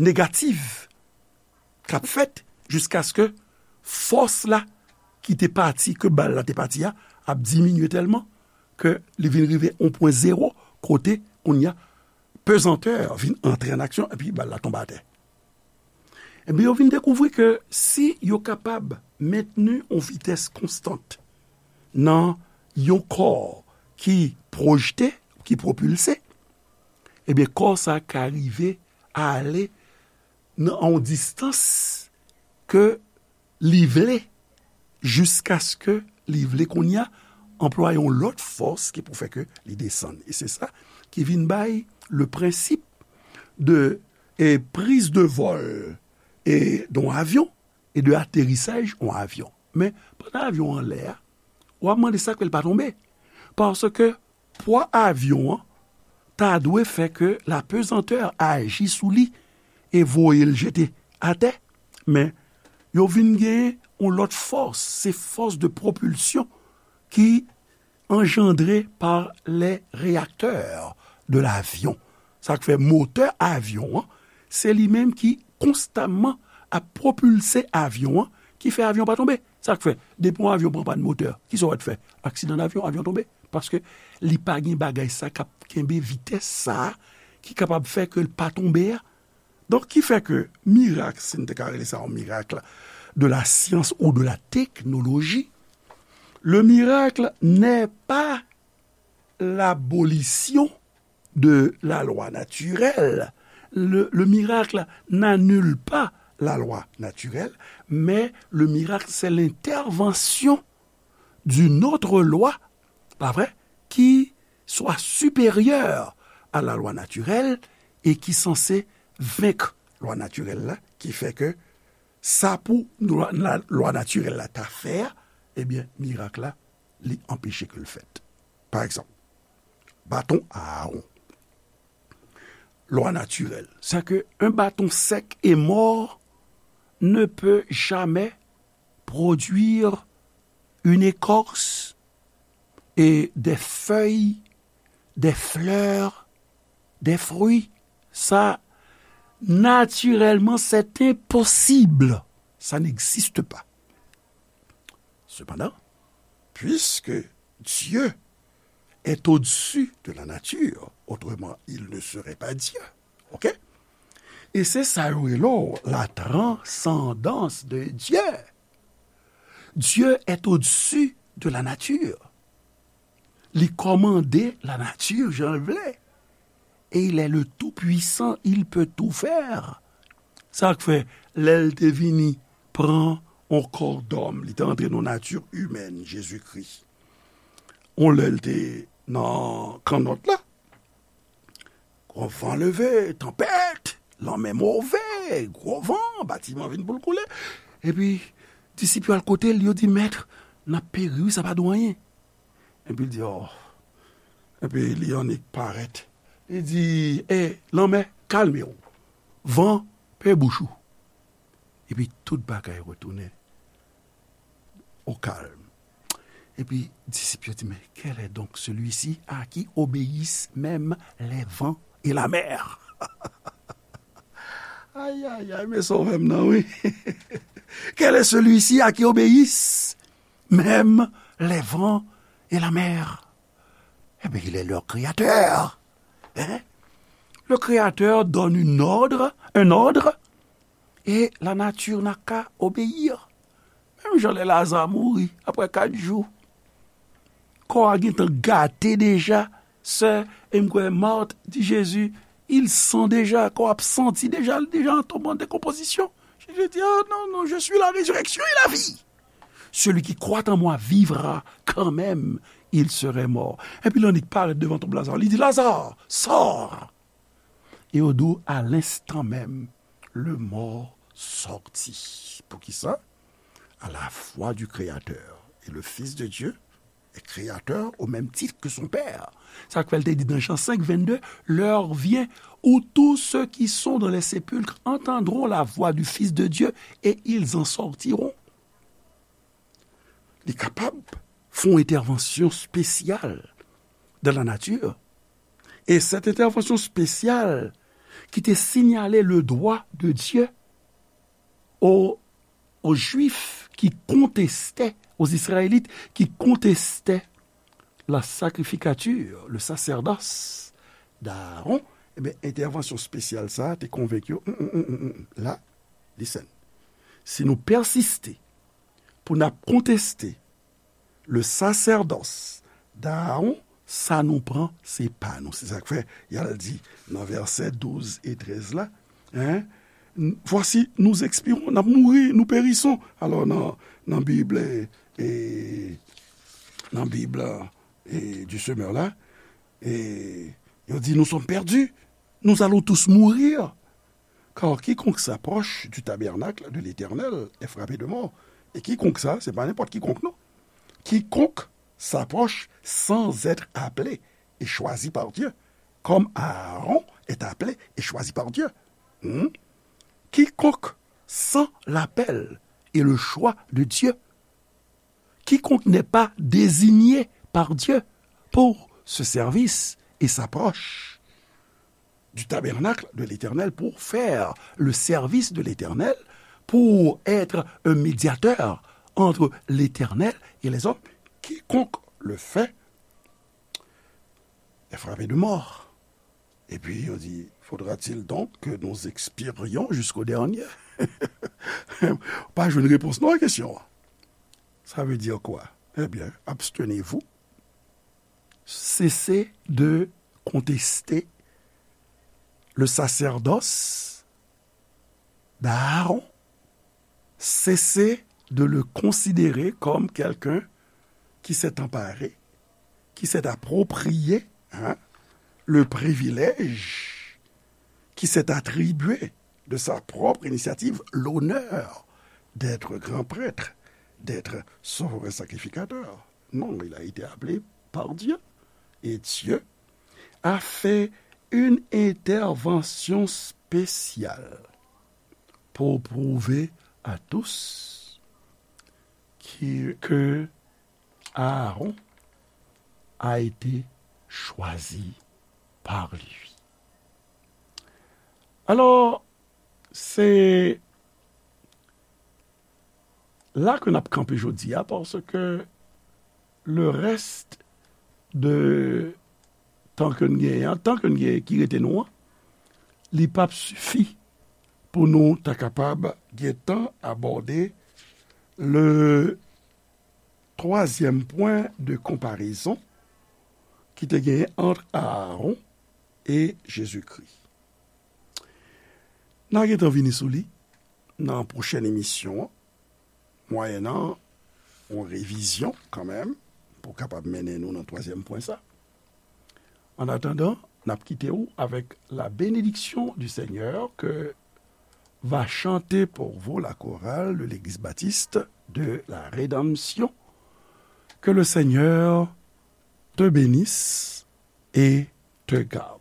negatif k ap fèt jiskaske fòs la ki te pati, ke bal la te pati a, ap diminye tèlman ke li vin rive yon pwen zewo, kote kounye a pezantè vin antre an aksyon epi bal la tonbe atè. Ebyen, yo vin dekouvri ke si yo kapab mentni yon vitès konstant nan yon kò ki pwojte, ki pwopilse, ebyen, kò sa ka rive ale nan yon distans ke li vle, jiskaske li vle kounye a anplwaye yon lòt fòs ki pou fè ke li desann. E se sa ki vin bay le principe de, e, prise de vol e, d'un avion et de atterrissage d'un avion. Men, pandan avyon an anlè a, w ap mande sa k fè l pa tonbe. Paske pwa avyon an ta dwe fè ke la pesanteur aji sou li e voye l jete atè. Men, yo vin gen yon lòt fòs, se force de propulsion ki engendré par les réacteurs de l'avion. Sa k fè motè avyon an, se li menm ki konstamman ap pwopilse avyon an, ki fè avyon pa tonbe. Sa k fè, depi yon avyon pran pàn motè, kisa w wè t fè? Aksidan davyon, avyon tonbe. Paske li pa gen bagay sa k ap kenbe vitès sa a, ki kapab fè ke l pa tonbe a. Donk, ki fè ke mirak, si n te ka rele sa yon mirak de la science ou de la technologie, le miracle n'est pas l'abolition de la loi naturelle. Le, le miracle n'annule pas la loi naturelle, mais le miracle, c'est l'intervention d'une autre loi, pa vre, qui soit supérieure à la loi naturelle et qui censée vaincre lwa natirèl la, ki fè ke sa pou lwa, la, lwa natirèl la ta fè a, ebyen, mirak la, li anpeche ke l fèt. Pa egzanp, baton Aawon. Lwa natirèl, c'est que un bâton sec et mort ne peut jamais produire une écorce et des feuilles, des fleurs, des fruits. Ça, naturellement, c'est impossible. Ça n'existe pas. Cependant, puisque Dieu est au-dessus de la nature, autrement il ne serait pas Dieu. OK? E se sa yo rele w la transcendance de Dieu. Dieu est au-dessus de la nature. Li kòmande lanati jan l vle. Et il est le Tout-Puissant, il peut tout faire. Sa k fè, lè l te vini pran on kò dòm, li te antre nan nati imèn Jezikri. On lè l te nan kannòt la, gwo van leve, tanpèt, lanmè move, gwo van, batiman vin pou l koule. Epi, disip yo al kote l, yo di, Mèt, n ap peri, wi, sa pa di w anyen. Epi l di, Oh. Epi li annik parèt. Li di, E, lanmè, kalme w. Van, pe bouch ou. Epi tout bagay retounen au calme. Epi disip yo di, Mais quel est donc celui-ci à qui obéissent même les vents et la mer. Ay, ay, ay, men sovè m nan, wi. Quel est celui-ci à qui obéissent même les vents et la mer? Eh bien, il est leur créateur. Hein? Le créateur donne une ordre, un ordre, et la nature n'a qu'à obéir. Menm jan lè Laza mouri, apre kat jou, kò a gentan gate deja. Sè, e m kwè Mat di Jezi, il sent deja, kò ap santi deja, l deja an toman dekonpozisyon. Jezi di, ah non, non, je suis la résurrection et la vie. Celui qui croit en moi vivra quand même, il serait mort. Epi l annik parèt devan tonb Laza, li di, Laza, sort. Et au doux, à l'instant même, le mort sortit. Poukisa? À la voix du Créateur. Et le Fils de Dieu est créateur au même titre que son Père. Sa k fè l te di nan Jan senk vennde, l'heure vient où tous ceux qui sont dans les sépulcres entendront la voix du Fils de Dieu et ils en sortiront. Li kapab fè yon entèvansyon espesyal dans la nature. Et cette intervention spéciale qui te signalait le droit de Dieu aux, aux Juifs qui contestaient, aux Israélites qui contestaient la sacrificature, le sacerdoce d'Aaron, ebyen, entèvansyon espesyal sa a te konvenk yo, mm, mm, mm, mm, mm, la, listen. Si nou pèsiste pou n ap konteste le sacerdoce d'Aaron, sa nou pran, se pa nou. Se sa k fè, y al di nan vèsè douz e trèz la, hein, voici, nous expirons, n ap mouri, nous périssons. Alò, nan, nan Bib, e, e, nan Bib, e, du semeur la, e, yo di, nous sommes perdus, nous allons tous mourir. Car quiconque s'approche du tabernacle de l'Éternel est frappé de mort. Et quiconque ça, c'est pas n'importe quiconque, non. Quiconque s'approche sans être appelé et choisi par Dieu, comme Aaron est appelé et choisi par Dieu. Hmm? Quiconque sent l'appel et le choix de Dieu, quiconque n'est pas désigné par Dieu pour ce service et s'approche du tabernacle de l'Éternel pour faire le service de l'Éternel, pour être un médiateur entre l'Éternel et les hommes. Quiconque le fait est frappé de mort. Et puis, on dit, faudra-t-il donc que nous expirions jusqu'au dernier? Pa jwenn repons non a kesyon an. Ça veut dire quoi? Eh bien, abstenez-vous. Cessez de contester le sacerdoce d'Aaron. Cessez de le considérer comme quelqu'un qui s'est emparé, qui s'est approprié, hein, le privilège qui s'est attribué de sa propre initiative l'honneur d'être grand prêtre, d'être souverain sacrificateur. Non, il a été appelé par Dieu. Et Dieu a fait une intervention spéciale pour prouver à tous qui, que Aaron a été choisi par lui. Alors, c'est la ke n ap kanpe jodi a, paske le reste de tan ke n genyen an, tan ke n genyen ki rete nou an, li p ap sifi pou nou ta kapab gen tan abòde le troisième point de comparaison ki te genyen ant Aaron e Jezikri. N a gentan vini sou li nan pwochèn emisyon an, mwayennan yon revizyon kanmenm, pou kapab mennen nou nan twazyèm pwen sa. An atandan, n ap kite w avec la bénédiction du Seigneur que va chanter pour vous la chorale de l'Église baptiste de la Rédemption. Que le Seigneur te bénisse et te garde.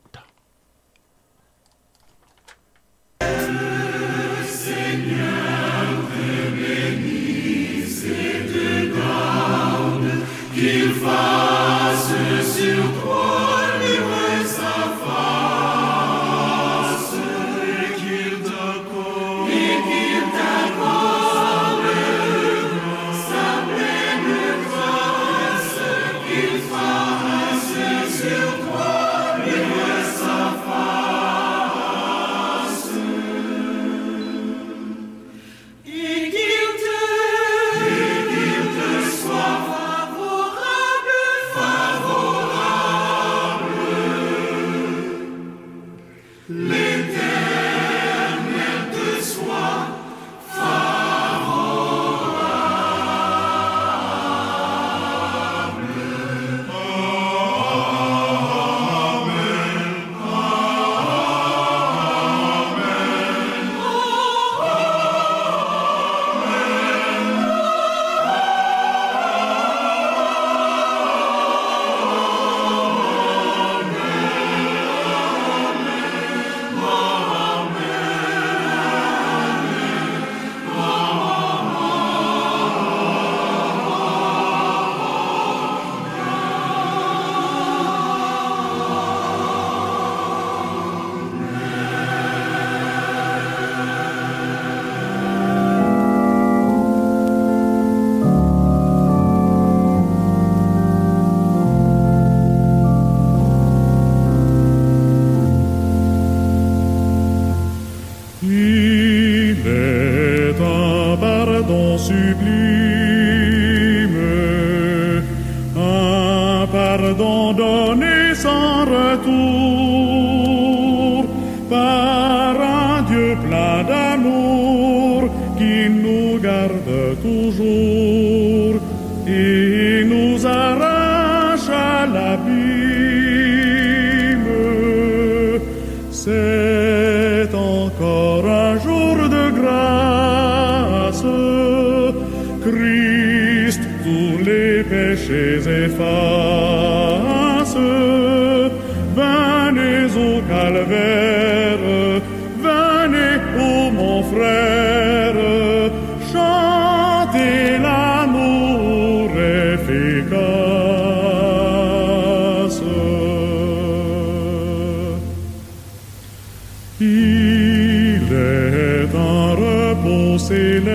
Qu'il fasse sur toi luire sa face. On sublime, un pardon donné sans retour par un Dieu plein d'amour qui nous garde toujours et nous arrache à l'abîme. C'est encore un jour de grâce. Christ tous les péchés efface. Venez au calvaire, venez, ô mon frère, chantez l'amour efficace. Il est un repos céleste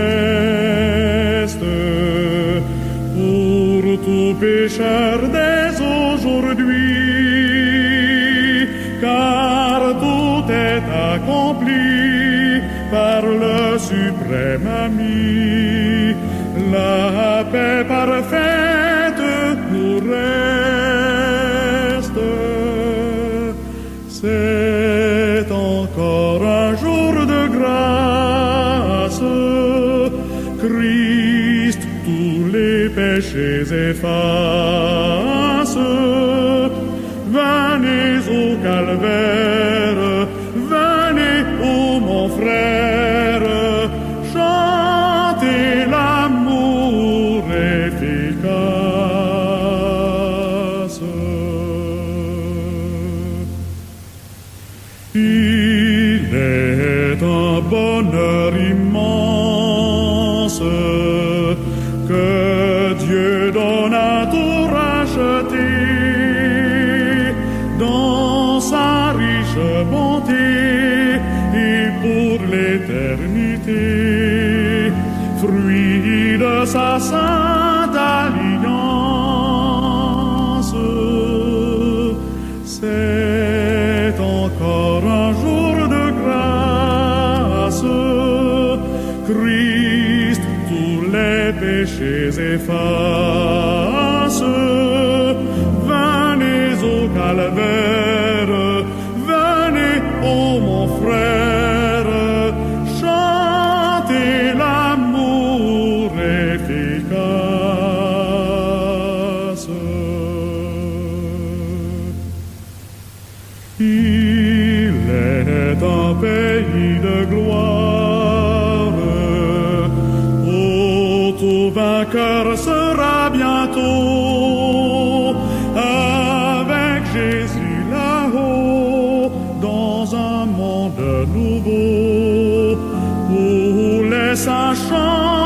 pour tout pécheur dès aujourd'hui, car tout est accompli par le suprême ami. La paix parfaite nous reste. C'est encore un jour de grâce. Christ tous les péchés efface. Venez au calvaire, venez, ô mon frère, chantez l'amour efficace. Il est un bonheur immense que Dieu donne à tout racheté dans sa riche bonté et pour l'éternité, fruit de sa sainte alliance. C'est encore un jour de grâce. Christ tous les péchés efface. Venez au calvaire, venez, ô mon frère, chantez l'amour efficace. Il est un pays de gloire où tout vainqueur sera bientôt avec Jésus là-haut dans un monde nouveau où les saints chantent